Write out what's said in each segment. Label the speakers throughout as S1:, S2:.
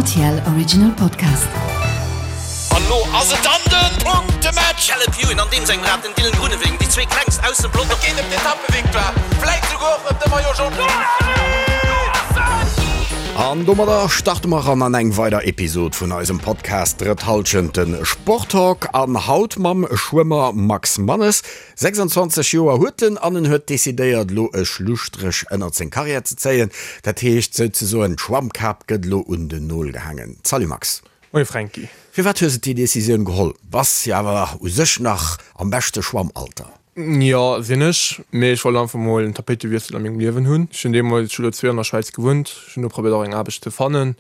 S1: Rtl Original Podcast.
S2: An lo ass et dann den Punktematch! Caleb Ewan an deem sengem Rad, den Dylan Groenewegen, déi zwee klengst aus dem Pelotong. Et geet ëm d'Etappevictoire, vläit souguer och ëm de Maillot Jaune.
S3: An domadder starte mer eran an eng weider Episod vun eisem Podcast Drëtt Hallschent, de Sporttalk. An haut mam Schwëmmer Max Mannes. 26 Joer huet en an en huet decidéiert elo e Schlusstréch ënnert seng Karriär ze zéien. Dat heescht souzesoen, d'Schwammkap gëtt elo un den Nol gehaangen. Salut Max.
S4: Moie Fränki.
S3: Firwat hues de déi Decisioun geholl? Bass jo awer u sech nach am beschte Schwammalter.
S4: Jo, sinn ech, mee ech wollt einfach mol en Tapéitewiessel a mengem Liewen hunn. Ech hunn deemools, ech hu lo zwee Joer an der Schwäiz gewunnt, ech hunn do probéiert och eng Aarbecht ze fannen,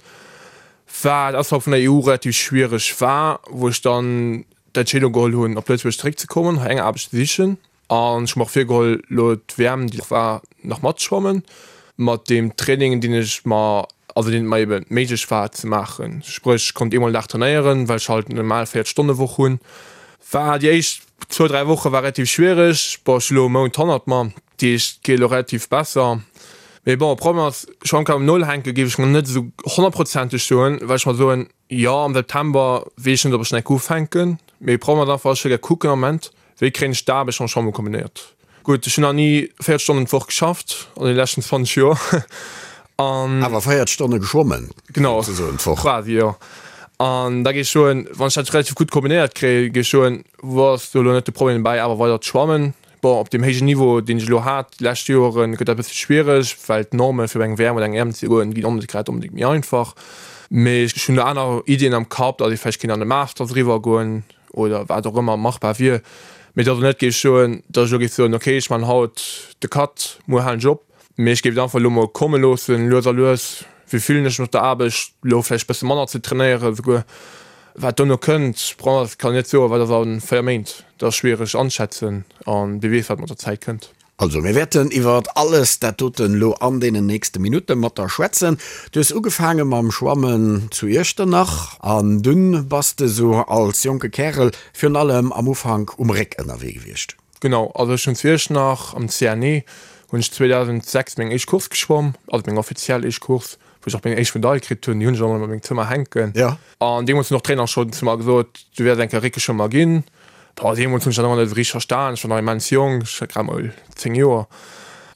S4: wat ausserhalb vun der EU relativ schwiereg war, wou ech dann d'Entscheedung geholl hunn, op Lëtzebuerg zeréckzekommen, hei eng Aarbecht ze sichen. An ech hu mer och virgeholl, elo d'WM, déi war, nach matzeschwammen, mat deem Training, deen ech mer, also deen et mer ebe méiglech war ze maachen. Spréch, ech konnt eemol den Dag trainéieren, well ech halt eng normal 40 Stonne Woch hunn. War déi éischt zwou, dräi Woche war relativ schwiereg. Bon, ech hu elo e Mount hannert mer, déi éischt geet elo relativ besser. Mee bon, Problem ass, Schwammkap um Nol hänke géif ech mer net esou honnertprozenteg soen, well ech mer soen, Jo, am September weess ech net, ob ech nach ufänken, mee Problem ass einfach, ech wëll gär kucken am Moment, wéi kréien ech d'Aarbecht mam Schwammen kombinéiert. Gutt, ech hunn nach ni 40 Stonnen d'Woch geschafft an deene leschten 20 Joer
S3: an. Awer 40 Stonne geschwommen,
S4: Genau, souzesoen d'Woch. Quasi, jo. An da géif ech soen, wann ech dat relativ gutt kombinéiert kréien, géif ech soen, wou ass do elo net de Problem dobäi, awer weider ze schwammen. Bon, op deem héijen Niveau, deen ech elo hat déi lescht Joeren, gëtt dat e bësse schwiereg, well d'Norme fir op eng WM oder eng EM ze goen, ginn och net grad onbedéngt méi einfach. Mee ech hunn do aner Iddien am Kapp, datt ee vläicht kéint an de Masters eriwwer goen oder wat och ëmmer machbar wier. Mee datt elo net géif soen, datt ech elo géif soen, okay, ech man haut de Cut, muer halen ech op. Mee ech géif et einfach elo mol komme loossen, lues a lues. Wéi fillen ech mech op der Aarbecht, elo vläicht e bësse manner ze trainéieren esouguer. Wat dono kënnt, bon, dat kann een net soen, wat ass a 4 Méint, dat ass schwiereg anschätzen an wie weess wat mat der Zäit kënnt.
S3: Also, mir wäerten iwwer alles dat doten elo an deenen nächste Minutte mat der schwätzen. Du hues ugefaange mam Schwammen zu Iechternach an dunn bass de sou als jonke Kärel virun allem am Ufank um Réck ënnerwee gewiescht.
S4: Genau, also ech hunn zu Iechternach am CNE hunn ech 2006 meng éischt Course geschwomm, also meng offiziell éischt Course, wou ech och meng éischt Medail kritt hunn, déi hunn ech och nach a mengem Zëmmer hänken.
S3: Ja.
S4: An deemools hunn och d'Trainer schonn zu mer gesot, du wäers eng Kéier Réckeschwëmmer ginn. Boah, deemools hunn ech dat nach net esou richteg verstan, ech war nach immens jonk, ech hat grad mol 10 Joer.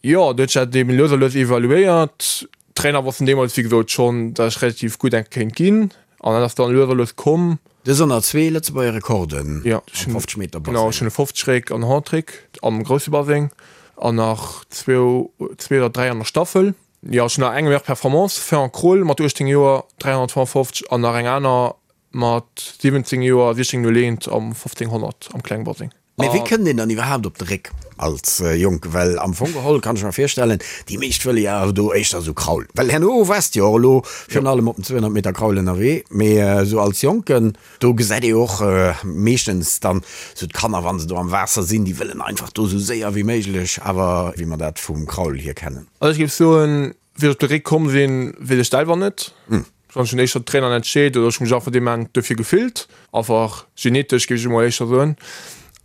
S4: Jo, du huet sech dat eben lues a lues evaluéiert. D'Trainer wossten deemools wéi gesot schonn, datt ech relativ gutt eng kéint ginn an dat ass dann lues a lues komm.
S3: Du hues ënner zwee Lëtzebuerger Rekorden
S4: am 50 Meter Baseng. Genau, ech hunn e 50 Réck an 100 Réck am grousse Baseng an nach zwou, zwee oder dräi an der Staffel. Jo, ech hunn nach eng meilleure Performance, Ferrand Krohl mat 18 Joer 355 an nach eng aner mat 17 Joer 16,01 am 1500 am klenge Baseng.
S3: Mee wéi kënnt een dann iwwerhaapt op de Réck als Jonke? Well am Fong geholl kann ech mer virstellen, déi meescht wëlle jo awer do éischter esou Kraul. Well herno waars de jo och elo virun allem op den 200 Meter Kraul ënnerwee, mee esou als Jonken, do gesäit ee jo och meeschtens dann esou d'Kanner, wa se do am Waasser sinn, déi wëllen einfach do esou séier wéi méiglech, awer wéi mer dat vum Kraul hier kennen.
S4: Also ech géif soen, Wéi ech op de Réck komm sinn, weess ech selwer net. Wann ech hunn éischter d'Traineren entscheet oder ech hu mech einfach dee Moment dofir gefillt, einfach genetesch géif ech emol éischter soen.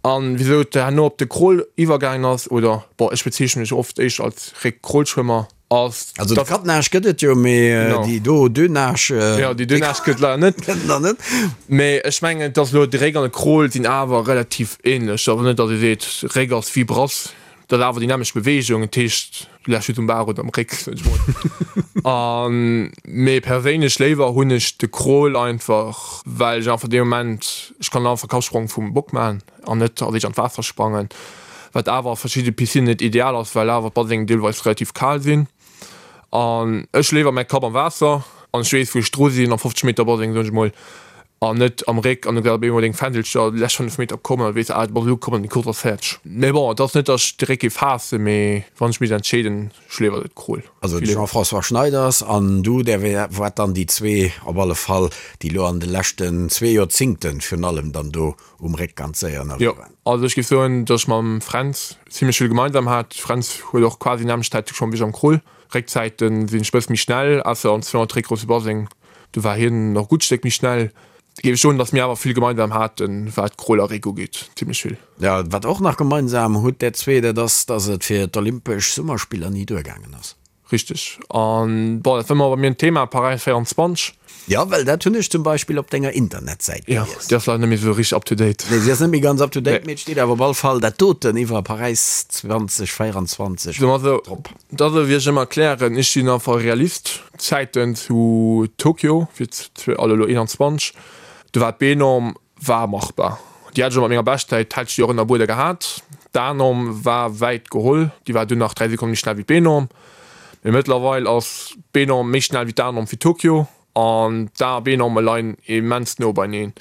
S4: An wisou et herno op de Crawl iwwergaangen ass, oder bon, ech bezeechne mech oft éischter als Réck-Crawl-Schwëmmer, ass
S3: Also de Quatre-Nage gëtt et jo, mee déi do Deux-Nage,
S4: Jo, déi Deux-Nage gëtt et leider net.
S3: Gëtt et nach net.
S4: Mee ech mengen, et ass elo, de Réck an de Crawl sinn awer relativ ähnlech. Awer net, datt ee seet, Réck ass wéi Brass. Dat ass awer déi nämmlecht Beweegung, dat heescht, du lächs just um Bar oder am Réck, sot ech mol. An, mee perséinlech léiwer hunn ech de Crawl einfach, well ech einfach dee Moment, ech kann einfach Kappsprong vum Bock maachen an net als éischt an d'Waasser sprangen, wat awer a verschidde Piscinnen net ideal ass, well awer d'Basengen deelweis relativ kal sinn. An ech léiwer mäi Kapp am Waasser an ech weess wou ech dru sinn am 50 Meter Baseng, soen ech mol, an net am Réck an du gesäis op eemol deng Fändelcher déi lescht 5 Meter kommen an du weess, ah du bass elo komm an déi Course ass fäerdeg. Mee bon, et ass net, datt ech de Réck géif haassen, mee wann ech misst entscheeden, ech léiwer de Crawl.
S3: Also de Jean-François Schneiders an du, där waart dann déi zwee op alle Fall, déi elo an de leschten zwee Joerzingten virun allem dann do um Réck ganz séier ënnerwee
S4: Jo, waren. also ech géif soen, datt ech mam Fränz zimlech vill gemeinsam hat. Fränz huet och quasi nämmlecht Zäite geschwommen wéi ech am Crawl. Réckzäiten sinn ech e bësse méi schnell, ausser am 200 Réck grousse Baseng. Do war hien nach e gutt Stéck méi schnell. Géif ech soen, datt mir awer vill gemeinsam haten, wat Crawl a Réck ugeet. Zimlech vill.
S3: Jo, wat och nach gemeinsam hutt där zwee, dat ass, datt et fir d'Olympesch Summerspiller ni duergaangen ass.
S4: Richteg. An bon, dat war ëmmer bei mir en Thema, Paräis 24.
S3: Jo, well dat hunn ech zum Beispill op denger Internetsäit
S4: gelies. Jo, déi ass leider net méi esou richteg up to date.
S3: Nee, si ass net méi ganz up to date, mee et steet awer op all Fall dat doten iwwer Paräis 2024
S4: Soe mer esou, drop. Dat ass wéi ech ëmmer erklären, ech sinn einfach e Realist. D'Zäiten zu Tokio, fir also elo 21, do war d'B-Norm War machbar. Déi hat ech och mat menger Beschtzäit, hätt ech déi och ënnerbuede gehat. D'A-Norm war wäit geholl, déi war dunn nach 3 Sekonne méi schnell wéi d'B-Norm. Mee mëttlerweil ass d'B-Norm méi schnell wéi d'A-Norm fir Tokio an d'A a B-Norme leien immens no beineen,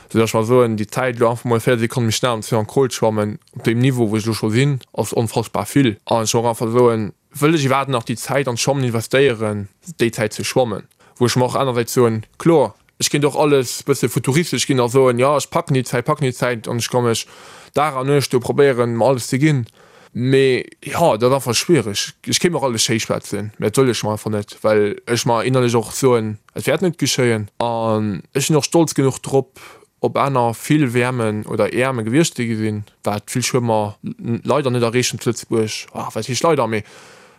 S4: sou datt ech mer soen, déi Zäit elo einfach mol 4 Sekonne méi schnell am 200 Crawl schwammen, op deem Niveau wou ech elo scho sinn, ass onfassbar vill. An ech och einfach soen, wëll ech iwwerhaapt nach déi Zäit an d'Schwammen investéieren, déi Zäit ze schwammen? Wou ech mer och anersäits soen, kloer, Ech kéint och alles bësse futuristesch ginn a soen, jo ech packen déi Zäit, packen déi Zäit an ech ka mech Dag an Nuecht do probéieren, mer alles ze ginn. Mee jo, dat ass einfach schwiereg. Ech kéint mer och alles schéi schwätzen, mä dat wëll ech mer einfach net, well ech mer innerlech och soen, et wäert net geschéien. An ech sinn och stolz genuch drop, op aner vill WMen oder EMe gewiescht ze sinn, wat vill Schwëmmer leider net erreechen zu Lëtzebuerg. Wat heescht leider, mee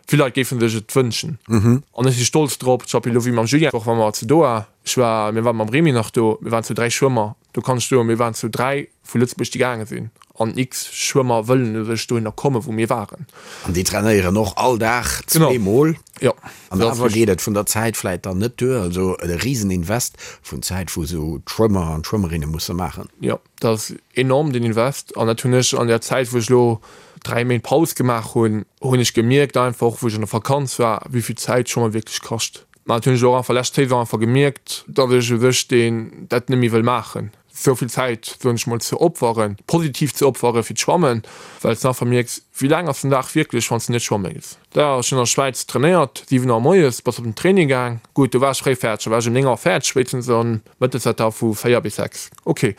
S4: Vill Leit géifen sech et wënschen. An ech si stolz drop. Zum Beispill elo wéi mam Julien, och wa mer zu Doha, ech war, mir waren mam Remy nach do, mir waren zu 3 Schwëmmer, do kann ech soen, mir waren zu 3 vu Lëtzebuerg déi gaange sinn an x Schwëmmer wëllen u sech dohinner kommen, wou mir waren.
S3: An déi trainéieren och all Dag zweemol.
S4: Jo.
S3: An awer geet et vun der Zäit vläit dann net duer. Also e Riseninvest vun Zäit, wou esou d'Schwëmmer an d'Schwëmmerinne musse maachen.
S4: Jo. Dat ass enorm, deen Invest. An dat hunn ech an der Zäit, wou ech elo 3 Méint Paus gemaach hunn, hunn ech gemierkt einfach, wou ech an der Vakanz war, wéi vill Zäit Schwammen wierklech kascht. Mä dat hunn ech och einfach lescht Saison einfach gemierkt, datt ech u sech deen dat net méi wëll maachen, esou vill Zäit, soen ech mol, ze opferen, positiv ze opfere fir d'Schwammen, well s de einfach mierks, wéi laang ass den Dag wierklech, wann s de net schwamme gees. Da, ech hunn an der Schwäiz trainéiert, 7 Auer moies bass op den Training gaang. Gutt, do war ech fréi fäerdeg, da war ech ëm 9 Auer fäerdeg spéitstens an mëttes war da vu 4 bis 6. Ok.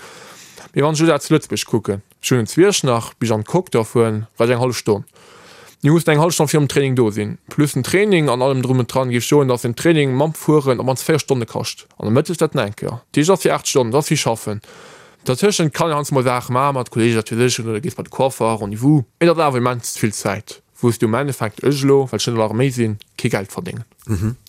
S4: Mee wann ech elo dat zu Lëtzebuerg kucken, ech hunn en Zwierch nach, bis ech an d'Coque da fueren, brauch ech eng hallef Stonn. Mir mussen eng hallef Stonn virum Training do sinn, plus den Training an allem drum und dran, géif ech soen, dass en Training mam Fueren op mannst 4 Stonne kascht. An da mëttes dat nach eng Kéier. Dat heescht, et ass fir 8 Stonnen, dat ass wéi schaffen. Dertëschent kann een heiansdo mol Saache maachen mat Kolleegen, wat weess ech, oder gees bei de Coiffer, Rendez-vous. Mee dat ass awer immens vill Zäit. Wou s du am Endeffekt, ech elo, well ech net an der Arméi sinn, kee Geld verdéngen.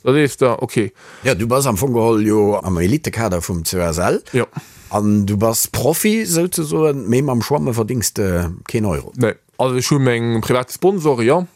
S4: Da sees de, ok.
S3: Jo, du bass am Fong geholl jo am Elitekader vum COSL.
S4: Jo.
S3: An du bass Profi souzesoen, mee mam Schwamme verdéngs de keen Euro.
S4: Nee. Also ech hu meng privat Sponsoren, jo.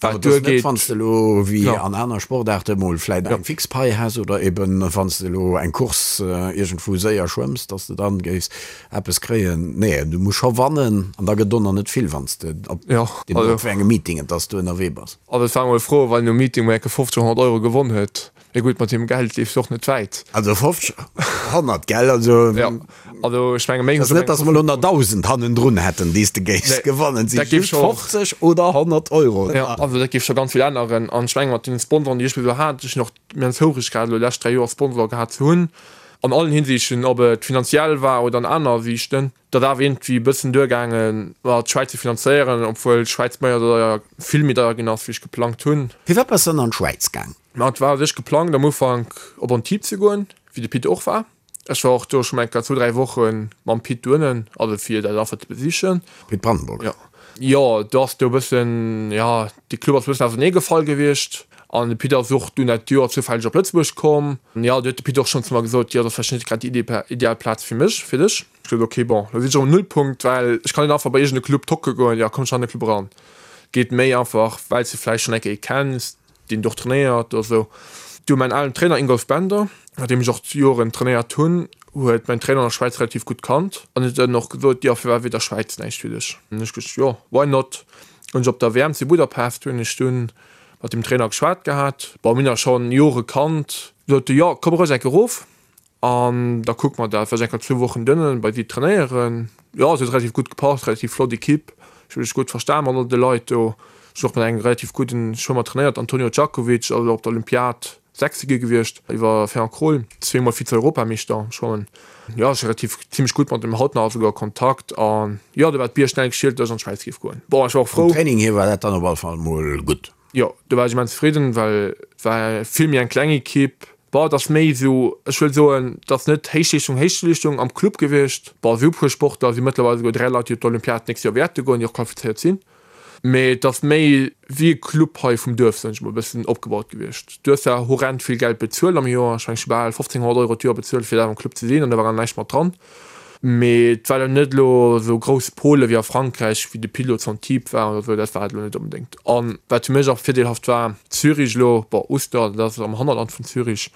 S3: Wat et ass net, wann s de elo wéi an aner Sportaarte mol vläit eng fix Pai häss oder eben wann s de elo eng Course iergendwou séier schwëmms, dass de dann géifs eppes kréien. Nee, du muss scho wannen an da gëtt och nach net vill, wann s de op deemno op wéi engem Meeting et ass du ënnerwee bass.
S4: Also et war emol fro, wann een um Meeting mol enke 50, 100 Euro gewonn huet. Mee gutt, mat deem Geld leefs du och net wäit.
S3: Also 50, 100, gell? Also.
S4: Jo, also ech menge
S3: méi. Ass net, datt mer elo nach 1.000 hannendrun hätten, déi s de géifs gewannen. Et si just 50 oder 100 Euro.
S4: Jo, also dat géif scho ganz vill änneren. An ech menge mat deene Sponsoren, déi ech bis elo hat, ech hunn och immens houfreg grad elo déi lescht 3 Joer Sponsor gehat ze hunn, an allen Hinsichten, ob et finanziell war oder an aner Sichten. Dat awer iergendwéi e bëssen duergaangen, ma d'Schwäiz ze finanzéieren, obwuel d'Schwäiz méi deier, vill méi deier ginn ass, wéi ech geplangt hunn.
S3: Firwat bass de dann an d'Schwäiz gaang?
S4: Ma et war u sech geplangt am Ufank op Antibes ze goen, wéi de Pit och war. Ech war och do schonn eng Kéier zwou, dräi Woche mam Pit doënnen, also fir dat einfach ze besichen.
S3: Pit Brandenburg?
S4: Jo. Jo, do ass do e bëssen, jo, de Club ass e bëssen ausernee gefall gewiescht an de Pit ass och dunn dat Joer zoufälleg op Lëtzebuerg komm. Jo, do huet de Pit och schonn zu mer gesot, jo, dat ass vläicht net grad déi ideal Plaz fir mech, fir dech. Ech gesot, ok, bon, lo sinn ech erëm um Nullpunkt, well ech kann net einfach bei iergend e Club tocke goen, jo, komm ech an de Club eran. Geet méi einfach, well s de vläicht schonn eng Kéier ee kenns, deen do och trainéiert oder sou. Du, mäin alen Trainer Ingolf Bender, mat deem ech och Joren trainéiert hunn, huet mäin Trainer an der Schwäiz relativ gutt kannt an huet dann och gesot, jo, firwat wier da Schwäiz näischt fir dech? An ech gesot, jo, why not? Hunn ech op der WM zu Budapest hunn ech dunn mat dem Trainer geschwat gehat, bon, mir hunn eis schonn Jore kannt, sot e, jo, komm roueg eng Kéier erof. An da kucke mer dat, war ech enker zwou Wochen donnen bei si trainéieren. Jo, et huet relativ gutt gepasst, relativ flott Equipe, ech hu mech gutt verstan mat all de Leit do. Ech hunn och mat engem relativ gudden Schwëmmer trainéiert, Antonio Djakovic, also op der Olympiad Sechste gi gewiescht iwwer Fernand Krohl, zweemol Vize-Europameeschter am Schwammen. Jo, ech si relativ zimmlech gutt mat dem haut nach esouguer a Kontakt an jo, do war d'Bier schnell geschielt, datt ech an d'Schwäiz géif goen. Bon, ech war och
S3: frou. Vum Training hier war dat dann op all Fall mol gutt.
S4: Jo, do war ech immens zefridden, well et war vill méi eng kleng Equipe. Bon, et ass méi esou, ech wëll soen, et ass net Héichleeschtung, Héichleeschtung am Club gewiescht. Bon, esou puer Sportler si mëttlerweil esouguer 3 Leit, déi op d'Olympiad d'nächst Joer wäerte goen, déi och qualifizéiert sinn. Mee et ass méi wéi e Club hei vum Duerf, soen ech mol, e bëssen opgebaut gewiescht. Du hues zwar horrend vill Geld bezuelt am Joer, ech mengen ech hu bal 1.500 Euro d'Joer bezuelt fir da am Club ze sinn an do war awer näischt mat dran. Mee et war elo net elo esou grouss Pôle wéi a Frankräich, wéi de Pilo zu Antibes war oder esou, dat war et elo net onbedéngt. An wat fir mech och virdeelhaft war, Zürich elo, bon Uster, dat ass am Hannerland vun Zürich,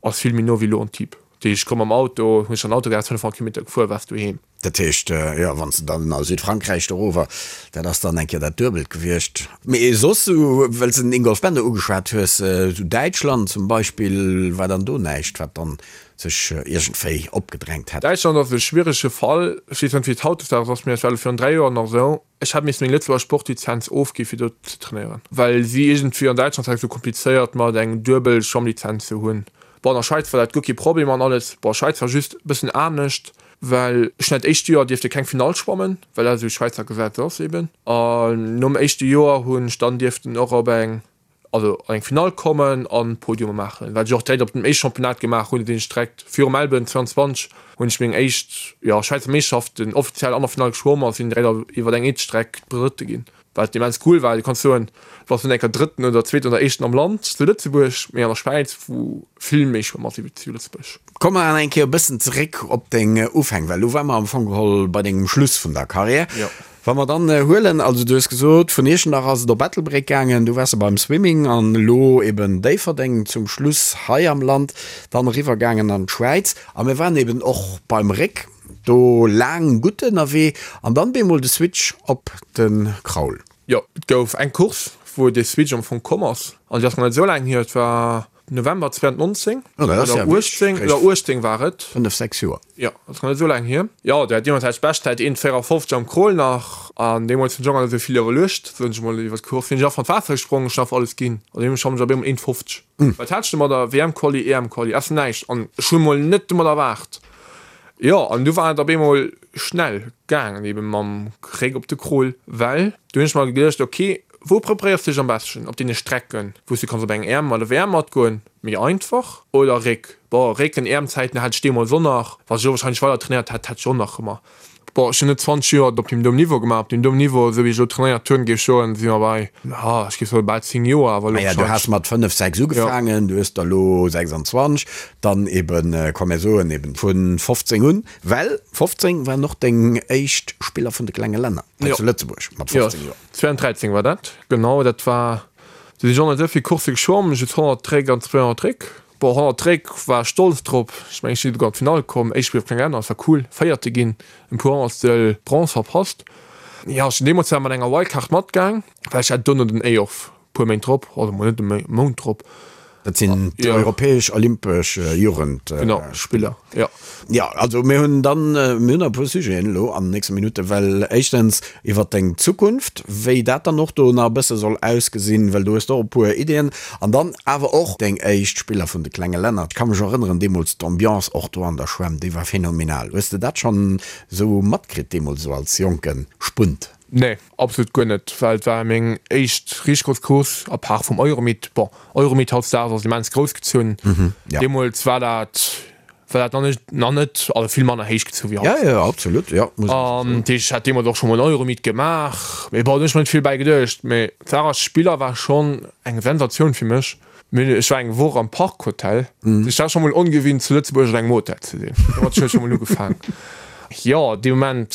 S4: ass vill méi no wéi elo Antibes. Dat heescht, ech komm mam Auto, hunn ech an Auto gehat, 500 Kilometer gefuer, waars doheem.
S3: Dat heescht, jo, wann s de dann a Südfrankräich dorower, dat ass dann eng Kéier dat Duebelt gewiescht. Mee soss, esou, well s de den Ingolf Bender ugeschwat hues, esou Däitschland zum Beispill, war dann do näischt, wat dann sech iergendwéi opgedrängt hätt?
S4: Däitschland ass e schwierege Fall. Ech weess net, wéi et hautdesdaags ass, mee et war elo virun 3 Joer nach esou, Ech hat missen meng Lëtzebuerger Sportlizenz ofgi fir do ze trainéieren, well si iergendwéi an Däitschland war et esou komplizéiert mat eng duebel Schwammlizenz ze hunn. Bon, an der Schwäiz war dat guer kee Problem an alles. Bon, Schwäiz war just e bëssen anescht, well ech hunn dat éischt Joer dierfte keng Finall schwammen, well dat esou Schwäizer Gesetz ass eben. An nom éischte Joer hunn ech dann dierften och op eng, also an eng Finall kommen an Podiume maachen, wat ech och direkt op dem éischte Championnat gemaach hunn, sinn ech direkt virum Melbourne 22 hunn ech meng éischt, jo, Schwäizer Meeschterschaften offiziell an der Finall geschwomm a sinn direkt iwwer eng Eetstreck Drëtte ginn. Wat immens cool war, du kanns soen, du bass net enker Drëtten oder Zweeten oder Éischten am Land zu Lëtzebuerg, mee an der Schwäiz, wou vill méi Schwëmmer si wéi zu Lëtzebuerg.
S3: Komme mer nach eng Kéier e bëssen zeréck op deng Ufäng, well elo ware mer am Fong geholl bei dengem Schluss vun der Karriär.
S4: Jo.
S3: Wa mer dann huelen, also du hues gesot, vun Iechternach ass et op Ettelbréck gaangen, du waars beim Swimming an elo eben Déifferdeng zum Schluss hei am Land, dann eriwwer gaangen an d'Schwäiz a mir waren eben och beim Réck. Do laang gutt ënnerwee an dann bemol de Switch op de Kraul.
S4: Jo, et gouf eng Course wou dee Switch am Fong komm ass an déi ass nach net esou laang hier, et war November 2019 oder 18 oder 18 war et.
S3: 5, 6 Joer.
S4: Jo, dat ass nach net esou laang hier. Jo, do hat deemools hat ech Beschtzäit 1,54 am Crawl nach an deemools hunn ech och nach net esou vill iwwerluecht, soen ech mol, iwwer d'Course. Sinn ech einfach an d'Waasser gesprongen, ech hunn einfach alles ginn an deemools schwammen ech op eemol 1,50. Wat hat ech domadder? WM-Quali, EM-Quali, ass näischt an ech hunn mol net domadder erwaart. Jo, an du war et op eemol schnell gaangen, eben mam Réck op de Krol, well du hunn ech mer geduecht, ok, wou preparéiers du dech am beschten? Op deene Strecken, wou s du kanns op eng EM oder WM matgoen, méi einfach, oder Réck? Bon, Réck an EM-Zäiten hat ech deemools och nach, wa ech elo wahrscheinlech weider trainéiert hätt, hätt ech och nach ëmmer Bon, ech hunn net 20 Joer op deem Niveau gemaach. Op deem Niveau, esou wéi ech elo trainéiert hunn, géif ech soen, si mer bei, ja, ech géif soen, bal 10 Joer, awer elo
S3: Naja, du has mat 5, 6 ugefaangen, du hues der elo 26, dann eben, komm mir soen eben vu 15 un, well 15 waren och deng éischt Spiller vun de klenge Länner hei zu Lëtzebuerg mat 15 Joer.
S4: 2013 war dat, genau, dat war, do sinn ech och net esou vill Coursse geschwomm, just 100 Réck an 200 Réck. Bon, 100 Réck war ech stolz drop, ech mengen ech sinn esouguer an d'Finall komm, éischt Spill op kleng Länner, dat war cool, Véierte ginn, en puer Honnertstel Bronze verpasst. Jo, ech sinn deemools zwar mat enger Wildcard matgaang, well ech hat dono den EYOF, puer Méint drop, oder mol net e Mount drop.
S3: Dat sinn d'europäesch olympesch Jugendspiller.
S4: Jo.
S3: Jo, also mir hunn dann, mir hunn nach e puer Sujeten elo an den nächste Minutten, well éischtens iwwert deng Zukunft, wéi dat dann och do nach e bësse soll ausgesinn, well do hues de och e puer Iddien, an dann awer och deng éischt Spiller vun de klenge Länner. Ech ka mech erënneren, deemools d'Ambiance och do an der Schwämm, déi war phänomenal. Hues de dat schonn esou matkritt deemools, esou als jonke Spunt?
S4: Nee, absolut guer net, well et war meng éischt richteg grouss Course, à part vum Euromeet. Bon, Euromeet hautdesdaags ass immens grouss gezunn, deemools war dat war dat nach net, nach net, also vill manner héich gezu wéi haut.
S3: Ja, ja, absolut, ja,
S4: muss An dat heescht, ech hat deemools och scho mol en Euromeet gemaach, mee bon, do hunn ech mer net vill bäi geduecht. Mee d'Saach ass, Spiller war schonn eng Sensatioun fir mech. Mir, ech war eng Woch am Park Hotel, ech war scho mol ongewinnt zu Lëtzebuerg an engem Hotel ze sinn. Domat huet scho mol ugefaang. Jo, dee Moment,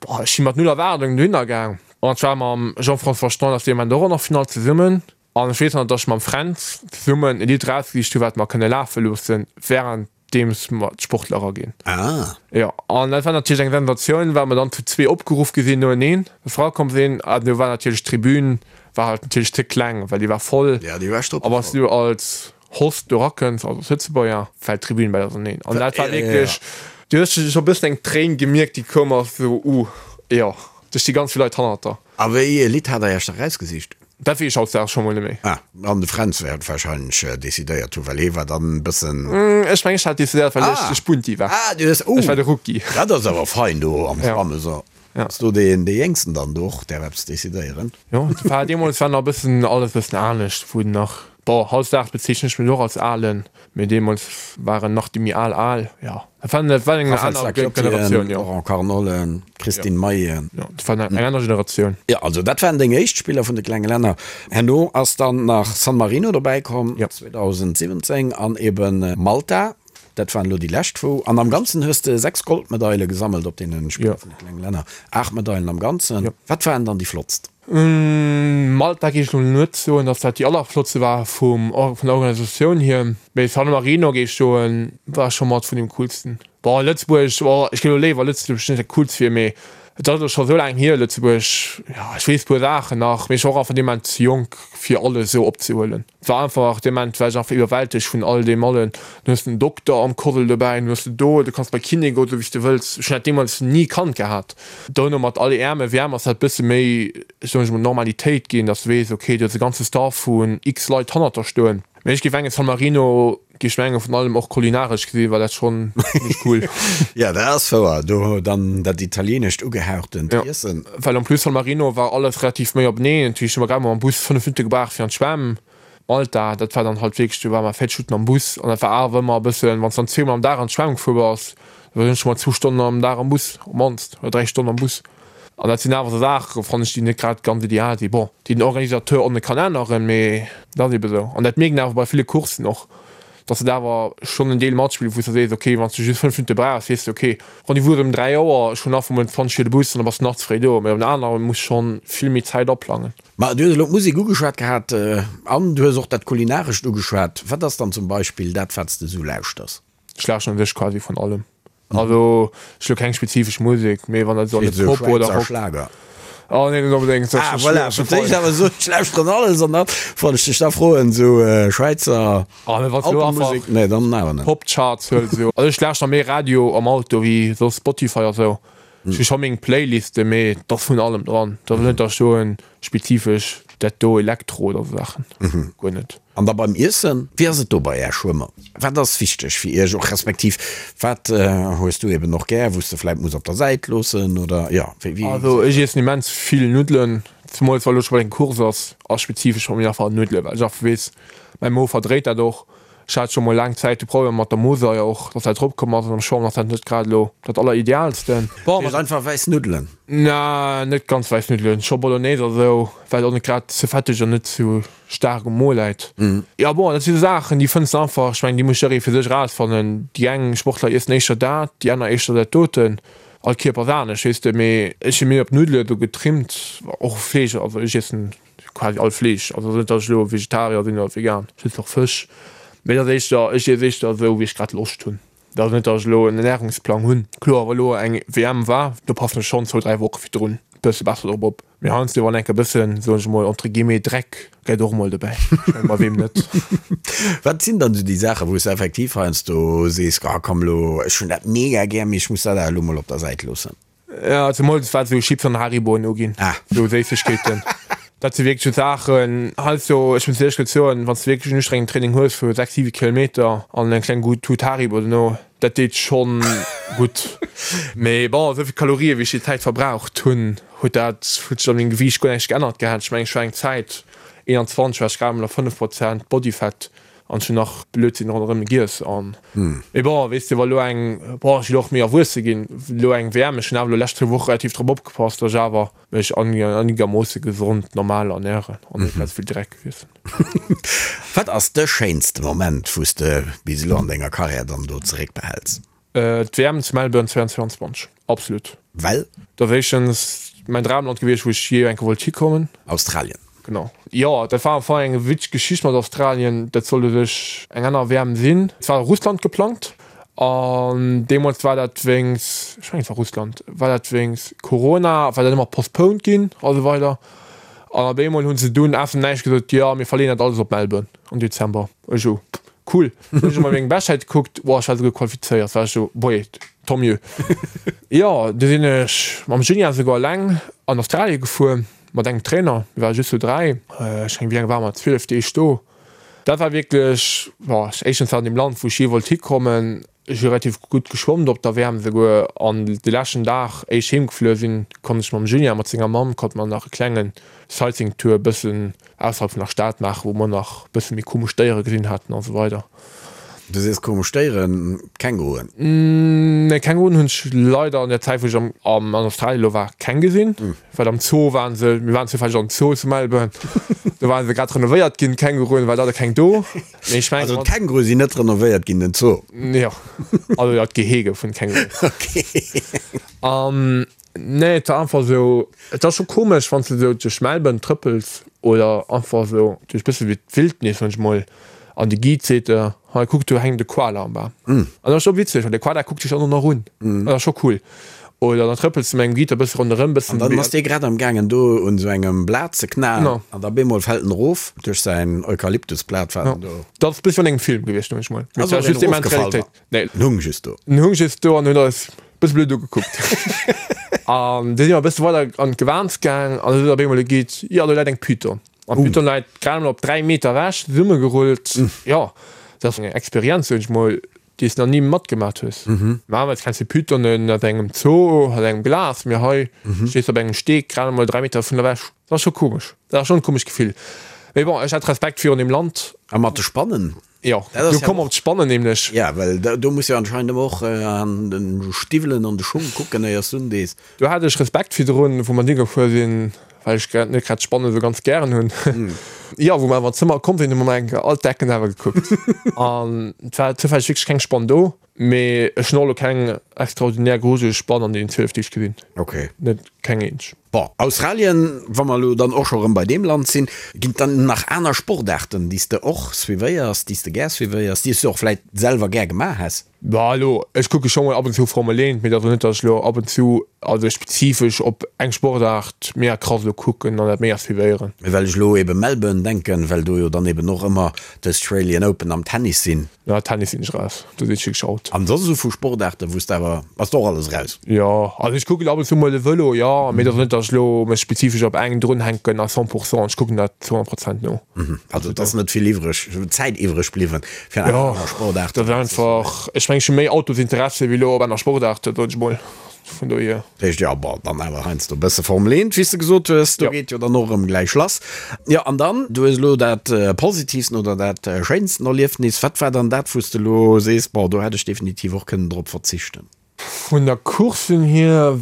S4: boah, ech si mat null Erwaardungen dohinner gaang. An ech war mam Jean-François Standaert dee Moment och an der Finall zesummen. An ech weess nach, datt ech mam Fränz zesummen e Lidd erausgesicht hu wat mer kënne lafe loossen, wärenddeems mer d'Sportler eraginn.
S3: Ah.
S4: Jo, an dat war natierlech eng Sensatioun, well mer dann zu zwee opgeruff gi sinn noeneen, dass mer erakomm sinn. An do war natierlech d'Tribün war halt natierlech ze kleng, well déi war voll.
S3: Ja, déi war
S4: A wann s du als Host do erakënns, also als Lëtzebuerger, fält d'Tribün bal auserneen. An dat war wierklech, du hues scho e bëssen eng Tréin gemierkt, déi koum ass, esou, uh, jo, do sti ganz vill Leit hannert der.
S3: A wéi ee Lidd hat der Iech da erausgesicht?
S4: Dat weess ech hautdesdaags scho mol net méi.
S3: Ah, an de Fränz wäert wahrscheinlech decidéiert hunn, well hee war dann e bëssen.
S4: Ech mengen, ech hat decidéiert, well ech de Spunti war.
S3: Ah, du hues, oh!
S4: Ech war de Rookie.
S3: Dat ass awer fein do am Schwammen, so. Ass do deen dee Jéngsten dann do och däerf eppes decidéieren?
S4: Jo, et war deemools war nach e bëssen alles e bëssen anescht, wou nach. Bon, hautdesdaags bezeechnen ech mech och als Alen, mee deemools waren nach déi méi al al. Jo, dat war dat war eng
S3: Raphaël
S4: aner
S3: Stacchiotti,
S4: Generatioun, jo.
S3: Laurent Carnollen, Christine Mayen.
S4: Jo, dat war eng aner Generatioun.
S3: Jo, also dat waren deng éischt Spiller vun de klenge Länner. Herno ass dann nach San Marino dobäi komm, 2017, an eben Malta. Dat waren elo déi lescht wou. An am Ganzen hues de 6 Goldmedaile gesammelt op deene Spiller vun de klenge Länner. 8 Medailen am Ganzen. Wat waren dann déi flottst?
S4: Malta géif ech elo net soen, datt dat déi allerflottste war vum vun der Organisatioun hier. Mee San Marino géif ech soen, war scho mat vun deem coolsten. Bon, Lëtzebuerg, bon, ech géif elo léiwer Lëtzebuerg net dat coolst wier, mee et ass elo scho sou laang hier, Lëtzebuerg, jo, ech weess puer Saachen nach, mee ech war och einfach dee Moment ze jonk fir alles esou opzehuelen. Et war einfach, dee Moment war ech einfach iwwerwältegt vun all deem allen. Du hues den Dokter am Kordel dobäi, du hues de do, du kanns bei Kiné goen, esou wéi s de wëlls. Ech hunn dat deemools ni kannt gehat. Dono mat all EM a WM ass dat bësse méi, soen ech mol, Normalitéit ginn, dass du weess, okay, du hues e ganze Staff vun x Leit hannert der stoen. Mee ech géif mengen, San Marino géif ech mengen, vun allem och kulinaresch gesi war dat schonn zimmlech cool.
S3: Jo, dat ass wouer, do dann dat italieenescht ugehauchtent Iessen.
S4: Well en plus San Marino war alles relativ méi openeen, dat heescht, hu mer grad mol mam Bus 5 Minutte gebraucht fir an d'Schwämm. Malta, dat war dann halt wierklech, do ware mer 40 Minutten am Bus an dat war awer ëmmer e bëssen, wann s de dann zweemol am Dag an d'Schwämm gefuer bass, da war s du scho mol zwou Stonnen am Dag am Bus, op d'mannst, oder 3 Stonnen am Bus. An dat sinn awer esou Saachen, fannen ech, déi net grad ganz ideal sinn. Bon, déi den Organisateur och net kann änneren, mee dat ass ebe sou. An dat mierkt een awer bei ville Courssen och, dass et awer schonn en Deel matspillt, wou s de sees, okay, wann s du just 5 Minutte brauchs, weess de, okay, Rendez-vous ass ëm 3 Auer, ech hunn nach vum 20 fir de Bus an da bass de nach ze fréi do. Mee op den anere muss schonn vill méi Zäit aplangen.
S3: Ma du hues elo d'Musek ugeschwat gehat an du hues och dat Kulinarescht ugeschwat. Wat ass dann zum Beispill dat, wat s de esou lauschters?
S4: Ech lauschteren u sech quasi vun allem. Also ech hu keng spezifesch Musek, mee wann dat esou an de Pop oder Rock.
S3: Schlager.
S4: Oh nee, net onbedéngt.
S3: Ah voilà, fir d'éischt awer esou, ech lauschteren alles an dann wollt ech dech da froen, esou Schwäizer
S4: Alpenmusek,
S3: nee dann awer net.
S4: Pop-Charts huel esou. Also ech lauschter méi Radio am Auto wéi soss Spotify a sou. Ech hu scho meng Playliste, mee et ass vun allem dran. Et ass net, datt ech soen, spezifesch dat do Elektro oder sou Saachen, guer net.
S3: An da beim Iessen, wéi ass et do bei Är Schwëmmer? Wat ass wichteg fir Iech och, respektiv wat hues du eben och gär, wou s de vläit muss op der Säit loossen oder jo, wéi
S4: wéi? Also ech iessen immens vill Nuddelen, zemools wa lo scho bei eng Course ass, ass spezifesch bei mir einfach Nuddelen, well ech einfach weess, mäi Mo verdréit dat och. Ech hat scho mol laang Zäit de Problem mat der Mosaier och, dass dat eropkomm ass an am Schwamm ass dat net grad elo dat alleridealsten.
S3: Bon, mat einfach wäiss Nuddelen?
S4: Na, net ganz wäiss Nuddelen, scho Bolognese a sou, well et och net grad ze fetteg an net ze staark um Mo läit. Jo bon, dat si sou Saachen, déi fënns de einfach, ech mengen, déi muss jidderee fir sech erausfannen. Déi eng Sportler iessen éischter dat, déi aner éischter dat doten. All Kierper ass anescht, weess de. Mee ech si méi op Nuddele do getrimmt, och Fleesch, also ech iessen quasi all Fleesch, also net datt ech elo Vegetarier sinn oder vegan, ech iessen och Fësch, mee et ass éischter, ech iess éischter esou wéi ech grad Loscht hunn. Et ass net datt ech elo en Ernärungsplang hunn. Kloer wa elo eng WM war, do passen ech schonn zwou, 3 Woche virdrun e bësse besser drop op, mee heiansdo wann enke bëssen, soen ech emol entre guillemets Dreck gëtt och emol dobäi, ech mengen bei weem net.
S3: Wat sinn dann esou déi Saachen, wou s de effektiv heiansdo sees, ah komm elo, ech hunn dat mega gär, mee ech muss dat awer elo mol op der Säit loossen?
S4: Ja, zemools wat esou Chips an Hariboen uginn, esou Séissegkeeten. Dat si wierklech esou Saachen, heiansdo, ech muss éierlech gesot soen, wann s de wierklech en ustrengend Training hues vu 6, 7 Kilometer an eng kleng gutt Tut Haribo dono, dat deet schonn gutt. Mee bon, esou vill Kalorië wéi ech déi Zäit verbraucht hunn, huet dat, huet sech an mengem Gewiicht guer näischt geännert gehat. Ech mengen, ech war eng Zäit 21, war ech grad emol a 5 Prozent Bodyfat. An ech hunn nach Blödsinn ronderëm giess an. Mee bon, weess de, wa lo eng, bon, ech sinn och méi erwuesse ginn, lo eng WM, ech hunn awer lo lescht zwou Woche relativ drop opgepasst, datt ech awer mech einigermoosse gesond, normal ernären an net grad esou vill Dreck iessen.
S3: Wat ass de schéinste Moment, wou s de bis elo an denger Karriär dann do zeréckbehäls?
S4: D'WM zu Melbourne 2022, absolut.
S3: Well?
S4: Dat ass éischtens mäin Dramland gewiescht, wou ech jee eng Kéier wollt hikommen.
S3: Australien.
S4: Genau. Jo, dat war am Fong eng witzeg Geschicht mat Australien. Dat sollt u sech eng aner WM sinn. Et war Russland geplangt an deemools war dat wéinst, ech mengen et war Russland, war dat wéinst Corona, war dat ëmmer postponed ginn a sou weider. An op eemol hu se dunn aus dem Näischt gesot, jo mir verleeën dat alles op Melbourne am Dezember. Ech esou, Cool. Hunn ech emol meng Beschtzäit gekuckt, woah, ech war souguer qualifizéiert, war ech sou, boje, tant mieux. Jo, du sinn ech mam Julien souguer alleng an Australie gefuer, mat engem Trainer, mir ware just zu 3, ech mengen, wéi laang ware mer, 12 Deeg do. Dat war wierklech, boah, éischtens war an deem Land, wou ech jee wollt hikommen. Ech hu relativ gutt geschwommt op der WM esouguer. An de leschten Dag, éi ech heem gefluer sinn, konnt ech mam Julien mat senger Mamm, konnte mer nach e klengen Sightseeing-Tour e bëssen ausserhalb vun der Stad maachen, wou mer nach e bësse méi komesch Déiere gesinn haten a sou weider.
S3: Du sees komesch Déieren, Känguruen?
S4: Nee, Känguruen hunn ech leider an der Zäit, wou ech am an Australien elo war, keng gesinn. Well am Zoo waren se, mir waren zoufälleg am Zoo zu Melbourne, do waren se grad renovéiert ginn, d'Känguruen, war leider keng do.
S3: Mee ech mengen. Also d'Kängurue sinn net renovéiert ginn, den Zoo?
S4: Jo, also jo, d'Gehege vun de Känguruen.
S3: Ok.
S4: An nee, et war einfach esou, et ass scho komesch, wann s de esou duerch Melbourne trëppels oder einfach esou duerch bësse wéi d'Wildnis, soen ech mol, an de Guide seet der, hei kuck, do hänkt e Koala am Bam. An dat ass scho witzeg, well de Koala kuckt dech dann och nach un. Dat ass scho cool. Oder dann trëppels de mat engem Guide e bësse ronderëm, bëssen.
S3: An dann ass dee grad am gaangen do un esou engem Blat ze knaen an da bemol fält en erof duerch säin Eukalyptusblat wat en do.
S4: Dat ass e bësse wéi an engem Film gewiescht, soen ech mol. Mee et war just immens
S3: Realitéit. Nee. En hung just do.
S4: En hung just do an huet eis e bësse blöd ugekuckt. An du si mer e bësse weider an d'Gewaans gaang an du sot op eemol de Guide, jo do läit eng Python. An d'Python läit grad emol op 3 Meter ewech zesummegerullt. Jo, dat ass eng Experienz, soen ech mol, déi s nach ni matgemat hues. Normalerweis kenns de Pythonen aus engem Zoo, aus engem Glas, mee hei stees de op engem Steek grad emol 3 Meter vun der ewech. Dat ass scho komesch. Dat ass schonn e komescht Gefill. Mee bon, ech hat Respekt virun deem Land.
S3: A mat de Spannen?
S4: Jo, do komm mer op d'Spannen nämlech.
S3: Ja, well do muss jo anscheinend ëmmer och an de Stiwwelen an de Schung kucken, éiers du undees.
S4: Do hat ech Respekt virdrun, wou mer higefuer sinn, well ech grad net grad d'Spannen esou ganz gären hunn. Jo, wou mer awer an d'Zëmmer komm sinn, hu mer eng Kéier all d'Decken awer gekuckt. An et war zoufälleg wierklech keng Spann do, mee ech hunn och elo keng extraordinär grujeleg Spann an deenen 12 Deeg gesinn.
S3: Ok.
S4: Net keng eenzeg.
S3: Bon, Australien, wa mer elo dann och scho rëm bei deem Land sinn, ginn et dann nach aner Sportaarten, déi s de och suivéiers, déi s de gär suivéiers, déi s de och vläit selwer gär gemaach häss?
S4: Bah, elo, ech kucke scho mol ab und zu Formel 1, mee et ass elo net, datt ech elo ab und zu, also spezifesch op eng Sportaart mega krass elo kucken an dat mega suivéieren.
S3: Mee well ech elo ebe Melbourne denken, well do jo dann eben och ëmmer d'Australian Open am Tennis sinn.
S4: Ja, Tennis sinn ech raus, do sinn ech wierklech out.
S3: An soss esou vu Sportaarten, wou s de awer, bass de och alles raus?
S4: Jo, also ech kucken ab und zu mol de Vëlo, jo, mee et ass net, datt ech elo mech spezifesch op eng drunhänken à 100 pourcent, ech kucken dat zu 100 Prozent no.
S3: Also et ass net vill iwwreg, Zäit iwwreg bliwwen fir aner
S4: Jo,
S3: Sportaarten
S4: dat ass einfach, ech mengen ech hu méi Autosinteresse wéi elo op aner Sportaarten, soen ech mol. Vun dohier.
S3: Dat heescht, jo, bon, dann awer heiansdo e bësse Formel 1, wéi s de gesot hues, do geet jo dann och erëm gläich lass. Jo, an dann, du hues elo dat positivsten oder dat schéinsten Erliefnis. Wat war dann dat, wou s de elo sees, bon, do hätt ech definitiv och kënnen drop verzichten?
S4: Vun der Course hier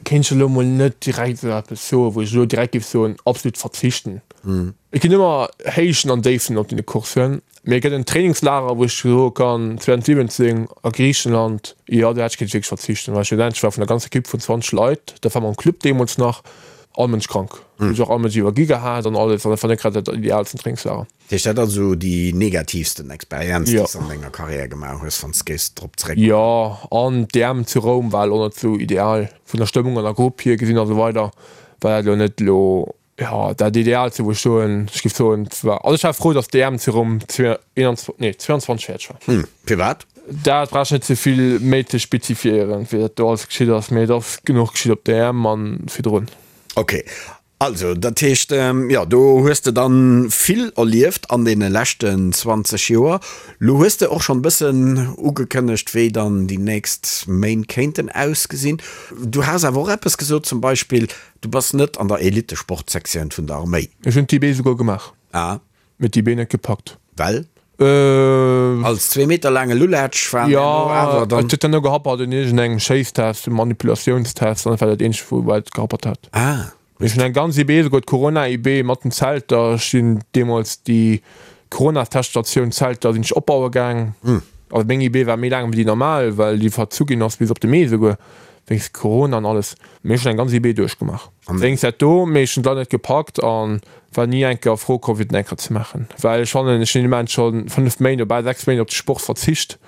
S4: kéint ech elo mol net direkt esou eppes soen, wou ech elo direkt géif soen, absolut verzichten. Et ginn ëmmer Héichten an Déiften op deene Courssen. Mee et gëtt en Trainingslager, wou ech soe kann, 2017 a Griichenland, jo, do hätt ech kéinte wierklech verzichten, well schlussendlech war vun der ganzer Ekipp vun 20 Leit, dat war mam Club deemools nach, all Mënsch krank. Hu sech och all Mënsch iwwergi gehat an alles, an dat war net grad dat ideaalsten Trainingslager.
S3: Dat heescht, dat ass esou déi negativsten Experienz, déi s de an denger Karriär gemaach hues, wann s de géifs drop zeréckkucken?
S4: Jo, an d'EM zu Roum war elo net esou ideal, vun der Stëmmung an der Grupp hier gesinn a sou weider, war dat elo net elo Jo, dat Ideaalste wou ech soen, ech géif soen, war, also ech war frou, datt d'EM zu Roum 21, nee 22 fäerdeg war.
S3: Hm, firwat?
S4: Dat brauch ech net ze vill méi ze spezifiéieren, wéi dat do alles geschitt ass, mee et ass genuch geschitt op der EM an virdrun.
S3: Ok, also dat heescht, jo, do hues de dann vill erlieft an deene leschten 20 Joer. Lo hues de och schonn e bëssen ugekënnegt, wéi dann déi nächst Méint kéinten ausgesinn. Du has awer och eppes gesot, zum Beispill, Du bass net an der Elitesportsektioun vun der Arméi?
S4: Ech hunn d'IB souguer gemaach.
S3: Ah.
S4: Mee d'IB net gepackt.
S3: Well? Als zwee Meter laange Lulatsch war
S4: jo awer dann. Jo, et huet dann no gehappert un iergendengem Schéisstest, um Manipulatiounstest, an dat war dat eenzegt wou et gehappert hat.
S3: Ah.
S4: Ech hunn eng ganz IB, souguer d'Corona-IB mat den Zelter. Ech sinn deemools déi Corona-Teststatioun Zelter sinn ech opbaue gaang. Also meng IB war méi laang wéi déi normal, well déi verzu ginn ass bis op de Mee souguer. Wéinst Corona an alles. Mee ech hunn eng ganz IB duerchgemaach. Wéinst dat do, mee ech hunn d'Leit net gepackt an war ni eng Kéier a Fro komm fir den eng Kéier ze maachen. Well ech fannen, ech hunn immens scho 5 Méint oder bal 6 Méint op de Sport verzicht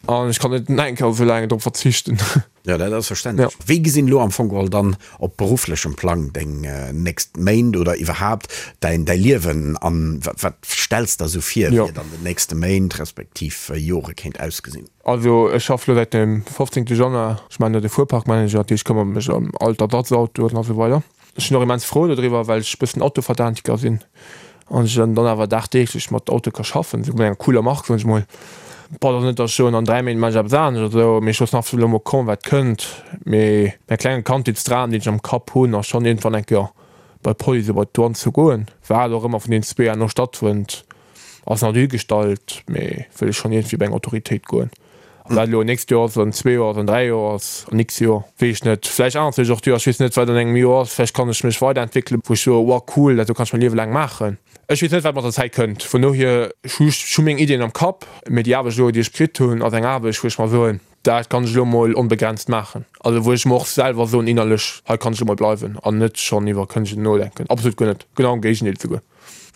S4: an ech kann net nach eng Kéier esou laang drop verzichten.
S3: Jo, dat ass verständlech. Wéi gesinn elo am Fong geholl dann op berufflechem Plang deng nächst Méint oder iwwerhaapt däin däi Liewen an? Wat stells der esou vir, wéi et an den nächste Méint respektiv Jore kéint ausgesinn?
S4: Also ech schaff lo säit dem 15 Januar, ech maachen do de Fuerparkmanager, dat heescht ech këmmere mech ëm all d'Ersatzautoen a sou weider. Ech sinn och immens frou dodriwwer, well ech e bëssen Autoverdaantiker sinn an ech dann awer dagdeeglech mat Auto ka schaffen, esou mat enger cooler Mark, soen ech mol. Bon, et ass net, datt ech soen, an 3 Méint maache ech eppes anescht oder esou, mee ech loossen einfach elo mol kommen, wat kënnt. Mee mäi klenge Kandheetsdram, deen ech am Kapp hunn, ass schonn iergendwann eng Kéier bei d'Police oder bei d'Douane ze goen. Wat och ëmmer vun deenen zwee herno stattfënnt, ass nach dohigestallt, mee wëll ech schonn iergendwéi bei eng Autoritéit goen. Ob dat elo nächst Joer ass, an zwee Joer ass, an dräi Joer ass, an x Joer, weess ech net. Vläicht ännert sech och d'Joer, ech weess net, wat an engem Joer ass. Vläicht kann ech mech weiderentwéckelen, wou ech soe, Wow, cool, dat do kann ech mäi Liewe laang maachen. Ech weess net, wat mat der Zäit kënnt. Vun dohier, ech hu ech hu meng Iddien am Kapp, mee déi Aarbecht elo, déi ech kritt hunn, ass eng Aarbecht, wou ech mer soen, dat kann ech elo mol onbegrenzt maachen. Also wou ech mer och selwer soen innerlech, hei kann ech elo mol bleiwen an net schonn iwwer Kënnegen nodenken. Absolut guer net, genau am Géigendeel souguer.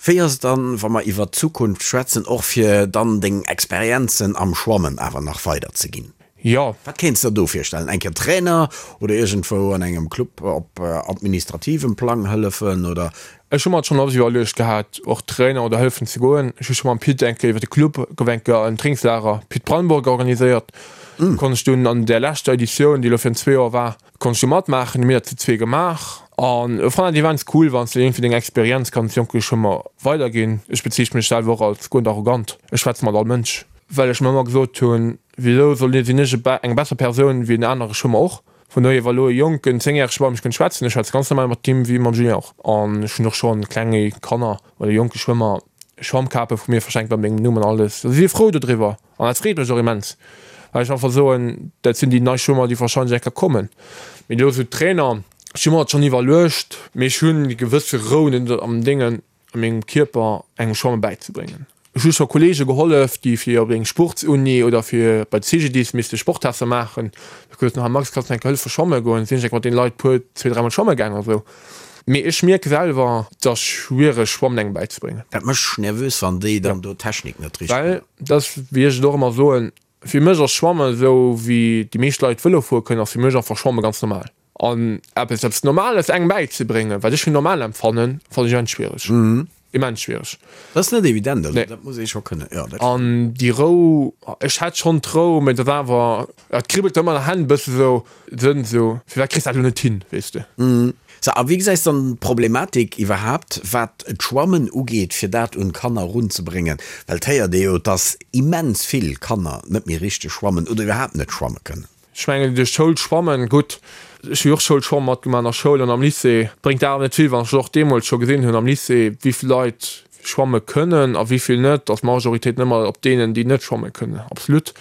S3: Wéi ass et dann, wa mer iwwert d'Zukunft schwätzen, och fir dann deng Experienzen am Schwammen awer nach weider ze ginn?
S4: Jo.
S3: Wat kéints der do virstellen? Eng Kéier Trainer oder iergendwou an engem Club op administrativem Plang hëllefen oder?
S4: Ech hu mer et schonn oft iwwerluecht gehat, och Trainer oder hëllefen ze goen. Ech hu scho mam Pit eng Kéier iwwer de Club, gouf eng Kéier en Trainingslager Pit Brandenburg organiséiert. Do konnt ech dunn an där leschter Editioun, déi elo virun zwee Joer war, Konnt ech do matmaachen, hu mir dat zu zwee gemaach an ech fannen dat immens cool wanns de iergendwéi deng Experienz kanns jonke Schwëmmer weiderginn. Ech bezeechne mech selwer och als guer net arrogant, ech schwätze mat all Mënsch, well ech mer ëmmer gesot hunn, wisou soll sinn ech eng besser Persoun wéi en anere Schwëmmer och. Vun dohier wa lo e jonken zéngjärege bei mech kënnt schwätzen, ech schwätze ganz normal mat him wéi mam Julien och an ech hunn och schonn klenge Kanner oder jonke Schwëmmer Schwammkape vu mir verschenkt mat mengem Numm an alles, si si frou dodriwwer. An dat freet mech och immens, well ech einfach soen, dat sinn déi nei Schwëmmer, déi warscheinlech eng Kéier kommen. Mee elo esou Trainer, ech hu mer dat schonn iwwerluecht, mee ech hunn déi gewësse Rou net am Déngen, a mengem Kierper engem Schwamme bäizebréngen. Ech hu scho Kolleege gehollef, déi fir op eng Sportsuni oder fir bei de CGDIS misste Sporttester maachen. Da gesot hunn, Max, kanns du mir eng Kéier hëllefe schwamme goen? Sinn ech eng Kéier mat deene Leit puer, zwee, dräimol schwamme gaangen a sou. Mee ech mierke selwer, et ass schwiereg Schwammen engem bäizebréngen.
S3: Dat mécht nervös, wann déi dann do d'Technik net
S4: richteg. Well, dat ass, wéi ech et och ëmmer soen, fir mech ass Schwammen esou wéi déi meescht Leit Vëlo fuere kënnen, ass fir mech einfach Schwamme ganz normal. An eppes, eppes Normales engem bäizebréngen, wat ech fir normal empfannen, fannen ech immens schwiereg. Immens schwiereg.
S3: Dat ass net evident, also dat muss ee scho kënnen, jo,
S4: dat stimmt. An déi Rou, ech hätt schonn d'Rou, mee et ass awer, et kribbelt ëmmer an der Hänn e bësse sou, Sënn sou, firwat kriss dat elo net hin, weess de.
S3: Sou, a wéi gesäis dann d'Problematik iwwerhaapt, wat d'Schwammen ugeet, fir dat un d'Kanner erunzebréngen? Well et héiert ee jo, dass immens vill Kanner net méi richteg schwammen oder iwwerhaapt net schwamme kënnen.
S4: Ech mengen, duerch d'Schoul schwammen, gutt, ech hu jo och Schoulschwammen matgemaach an der Schoul an am Lycée, bréngt awer net vill, wann ech och deemools scho gesinn hunn am Lycée, wéi vill Leit schwamme kënnen a wéi vill net, ass d'Majoritéit net ëmmer op deenen, déi net schwamme kënnen, absolut.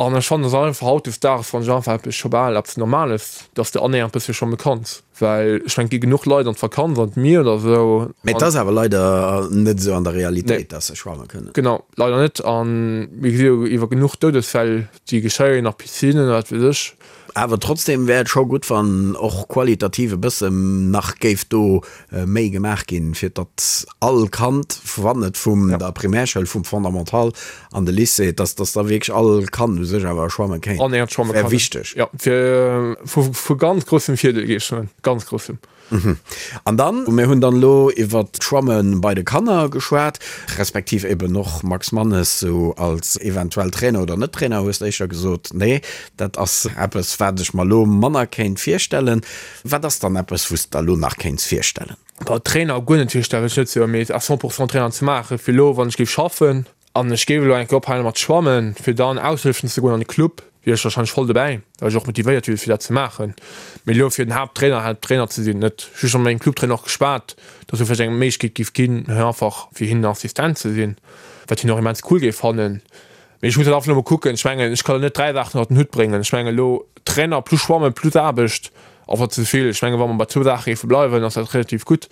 S4: An ech fannen, et ass einfach hautdesdaags, fannen ech einfach eppes scho bal eppes Normales, dass de annähernd e bëssche schwamme kanns, well ech mengen, et gi genuch Leit an d'Vakanz an d'Mier oder esou.
S3: Mä et ass awer leider net esou an der Realitéit, dass se schwamme kënnen.
S4: Genau, leider net. A mir gesi jo iwwer genuch Doudesfäll, Déi geschéien a Piscinnen, wat weess ech.
S3: Awer trotzdem wär et scho gutt, wann och qualitativ e bësse nach géif do méi gemaach ginn, fir datt all Kand, wann et vum der Primärschoul, vum Fondamental an de Lycée, datt datt da wierklech all Kand u sech awer schwamme kéint.
S4: Annähernd schwamme
S3: kann. Wär wichteg.
S4: Jo, fir vu ganz groussem Virdeel, géif ech soen. Ganz groussem.
S3: An dann, mir hunn dann elo iwwert d'Schwamme bei de Kanner geschwat, respektiv eben och Max Mannes sou als eventuell Trainer oder net Trainer, hues de éischter gesot, nee, dat ass eppes, wat ech mer elo manner kéint virstellen. Wat ass dann eppes, wou s de der elo nach kéints virstellen?
S4: Boah, Trainer guer net virstellen, wëll ech net soen, mee à 100 pourcent Trainer ze maachen, fir elo, wann ech géif schaffen, An ech géif elo eng Kéier ophale mat schwammen, fir dann aushëllefen ze goen an de Club, wier ech warscheinlech voll dobäi, well ech och motivéiert wier fir dat ze maachen. Mee elo fir den Haapttrainer, Haapttrainer ze sinn, net. Ech hu scho mat mengem Clubtrainer och geschwat, dass et vläicht eng Méiglechkeet géif ginn, hei einfach fir hien den Assistent ze sinn, wat hien och immens cool géif fannen. Mee ech muss dat einfach elo mol kucken. Ech mengen, ech kann elo net 3 Saachen ënnert den Hutt bréngen. Ech mengen elo Trainer plus Schwammen plus Aarbecht, einfach ze vill. Ech mengen, wa mer bei zwou Saache géife bleiwen, ass dat relativ gutt.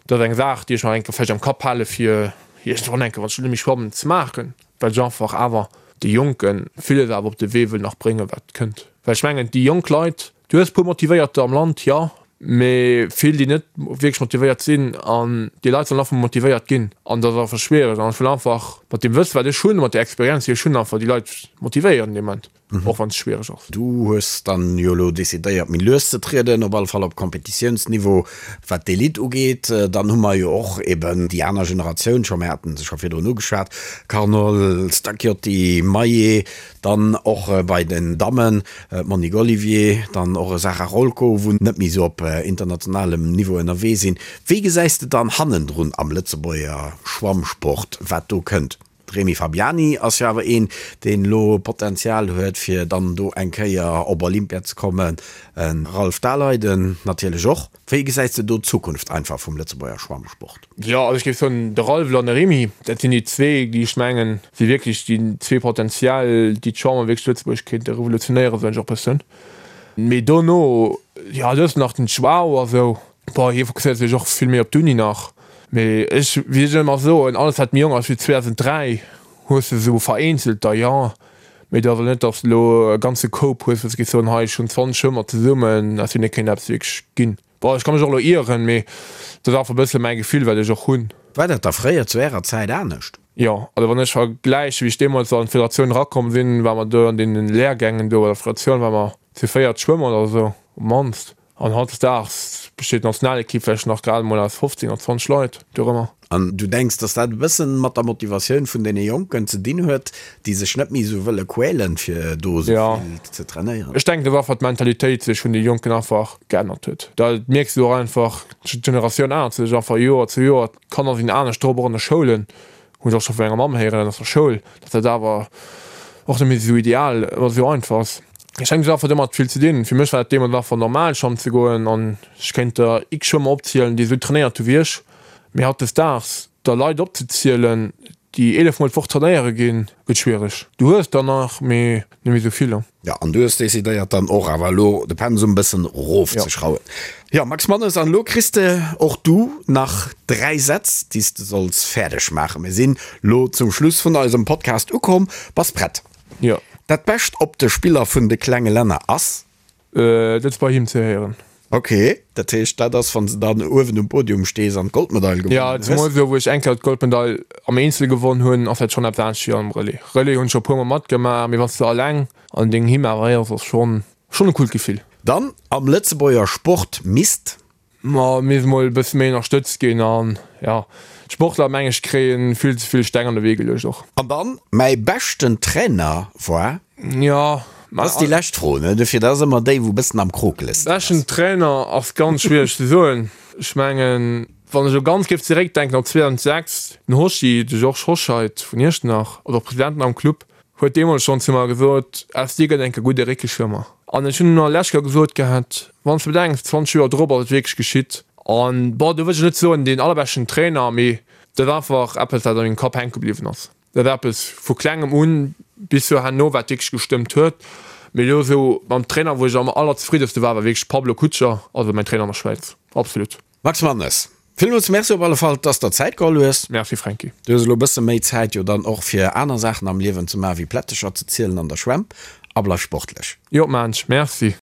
S4: Dat ass eng Saach, déi ech nach eng Kéier vläicht am Kapp hale fir iergendwann eng Kéier, wann ech net méi schwammen, ze maachen, well ech einfach awer de Jonke villes awer op de Wee wëll nach bréngen, wat kënnt. Well ech mengen, déi jonk Leit, du hues e puer Motivéierter am Land, jo, mee vill, déi net wierklech motivéiert sinn. An déi Leit sollen einfach mol motivéiert ginn. An dat ass einfach schwiereg. An ech wëll einfach mat deem Wësse, wat ech hunn, mat där Experienz, déi ech hunn, einfach déi Leit motivéieren dee Moment. Och wann et schwiereg ass.
S3: Du hues dann jo elo decidéiert méi lues ze trieden, op alle Fall op Competitiounsniveau wat d'Elite ugeet. Dann hu mer jo och eben déi aner Generatioun scho, mir haten se scho virdrun ugeschwat, Carnol, Stacchiotti, Maillet, dann och bei den Dammen d'Monique Olivier, dann och e Sarah Rolko, wou net méi esou op internationalem Niveau ënnerwee sinn. Wéi gesäis de dann hannendrun am Lëtzebuerger Schwammsport, wat do kënnt? De Rémi Fabiani ass jo awer een, deen elo Potenzial huet, fir dann do eng Kéier op Olympia ze kommen. E Ralph Daleiden natierlech och. Wéi gesäis de do d'Zukunft einfach vum Lëtzebuerger Schwammsport?
S4: Jo, also ech géif soen, de Ralph an de Rémi, dat sinn déi zwee, déi ech mengen, si wierklech déi zwee potenziell, déi d'Schwammen wierklech zu Lëtzebuerg kéinte revolutionéieren, soen ech och e bëssen. Mee dono, jo, du hues nach den Joao a sou. Bon, hie fokusséiert sech och vill méi op d'Uni nach. Mee ech, wéi ech ëmmer soen, alles wat méi jonk ass wéi 2003, hues de esou vereenzelter, jo. Mee et ass elo net, datt s de elo e ganze Koup hues, wou s de géifs soen, hei, ech hunn 20 Schwëmmer zesummen, aus deene kéint eppes wierklech ginn. Bon, ech ka mech och elo ieren, mee dat ass einfach e bësse mäi Gefill, wat ech och hunn.
S3: War dat da fréier zu Ärer Zäit anescht?
S4: Jo, also wann ech vergläichen, wéi ech deemools an d'Federatioun erakomm sinn, ware mer do an deenen Lehrgängen do bei der Federatioun, ware mer zu véiert Schwëmmer oder esou, op d'mannst. An hautdesdaags besteet d'Nationalekipp vläicht nach grad emol aus 15 oder 20 Leit dorëmmer.
S3: An du denks, dass dat e bëssen mat der Motivatioun vun deene Jonken ze dinn huet, déi sech net méi esou wëlle quälen, fir do esou vill ze trainéieren?
S4: Ech denken, dass einfach d'Mentalitéit sech vun de Jonken einfach geännert huet. Dat mierks du och einfach, d'Generatioun ännert sech einfach Joer zu Joer. D'Kanner sinn anescht drop, och an de Schoulen. Hunn ech och scho vu menger Mamm héieren aus der Schoul, datt dat awer och net méi esou ideal oder esou einfach ass. Ech denken, et huet einfach domat vill ze dinn. Fir mech war dat deemools einfach normal schwammen ze goen an ech kéint der x Schwëmmer opzielen, déi esou trainéiert hu wéi ech. Mee hautdesdaags der Leit opzezielen, déi 11 mol d'Woch trainéiere ginn, gëtt schwiereg. Du hues der nach, mee net méi esou vill.
S3: Jo, an du hues decidéiert dann och awer elo de Pensum bëssen rofzeschrauwen. Jo, Max Mannes, an elo kriss de och du nach 3 Sätz, déi s de solls fäerdeg maachen. Mir sinn lo zum Schluss vun eisem Podcast ukomm. Bass prett?
S4: Jo.
S3: Dat Bescht op de Spiller vun de klenge Länner ass?
S4: Dat ass bei him ze héieren.
S3: Ok, dat heescht dat ass wann s de dann uewen um Podium stees an d'Goldmedail
S4: gewonnen hues? Jo, zemools elo wou ech eng Kéier d'Goldmedail am Eenzel gewonn hunn, ass dat schonn eppes anescht wéi am Relais. Relais hunn ech scho e puer mol matgemaach, mee wann s de alleng an dengem Hymn awer héiers, ass schonn schonn e coolt Gefill.
S3: Dann am Lëtzebuerger Sport misst.
S4: Ma misst mol e bësse méi ënnerstëtzt ginn an jo, d'Sportler meng ech kréien vill ze vill Steng an de Wee geluecht och.
S3: An dann mäi beschten Trainer war.
S4: Jo,
S3: Dat ass déi lescht Fro, ne? Dofir, dat ass ëmmer déi wou bëssen am krokelsten
S4: ass. Beschten Trainer ass ganz schwiereg ze soen. Ech mengen wann ech elo ganz géif zeréckdenken op 2006, den Hoschi, de Georges Hoscheid vun Iechternach, also och President am Club, Huet deemools schonn zu mer gesot, Aus dir gëtt enke gudde Réckeschwëmmer. An ech hunn nach lech Joer gesot gehat, Wann s de bedenks, 20 Joer drop ass et wierklech geschitt. An, bon, do wëll ech net soen, deen allerbeschten Trainer, mee dat ass einfach eppes, wat a mengem Kapp hänke bliwwen ass. Dat ass eppes vu klengem un bis zu herno, wat wierklech gestëmmt huet. Mee elo esou mam Trainer, wou ech am allerzefriddenste war, war wierklech Pablo Kutscher, also mäin Trainer an der Schwäiz. Absolut.
S3: Max Mannes, villmools Merci op alle Fall, dass der Zäit geholl hues.
S4: Merci Franky.
S3: Du hues elo e bësse méi Zäit jo dann och fir aner Saachen am Liewen ze maachen, wéi Plättecher ze zielen an der Schwämm. A bleif sportlech.
S4: Jo, maan ech. Merci.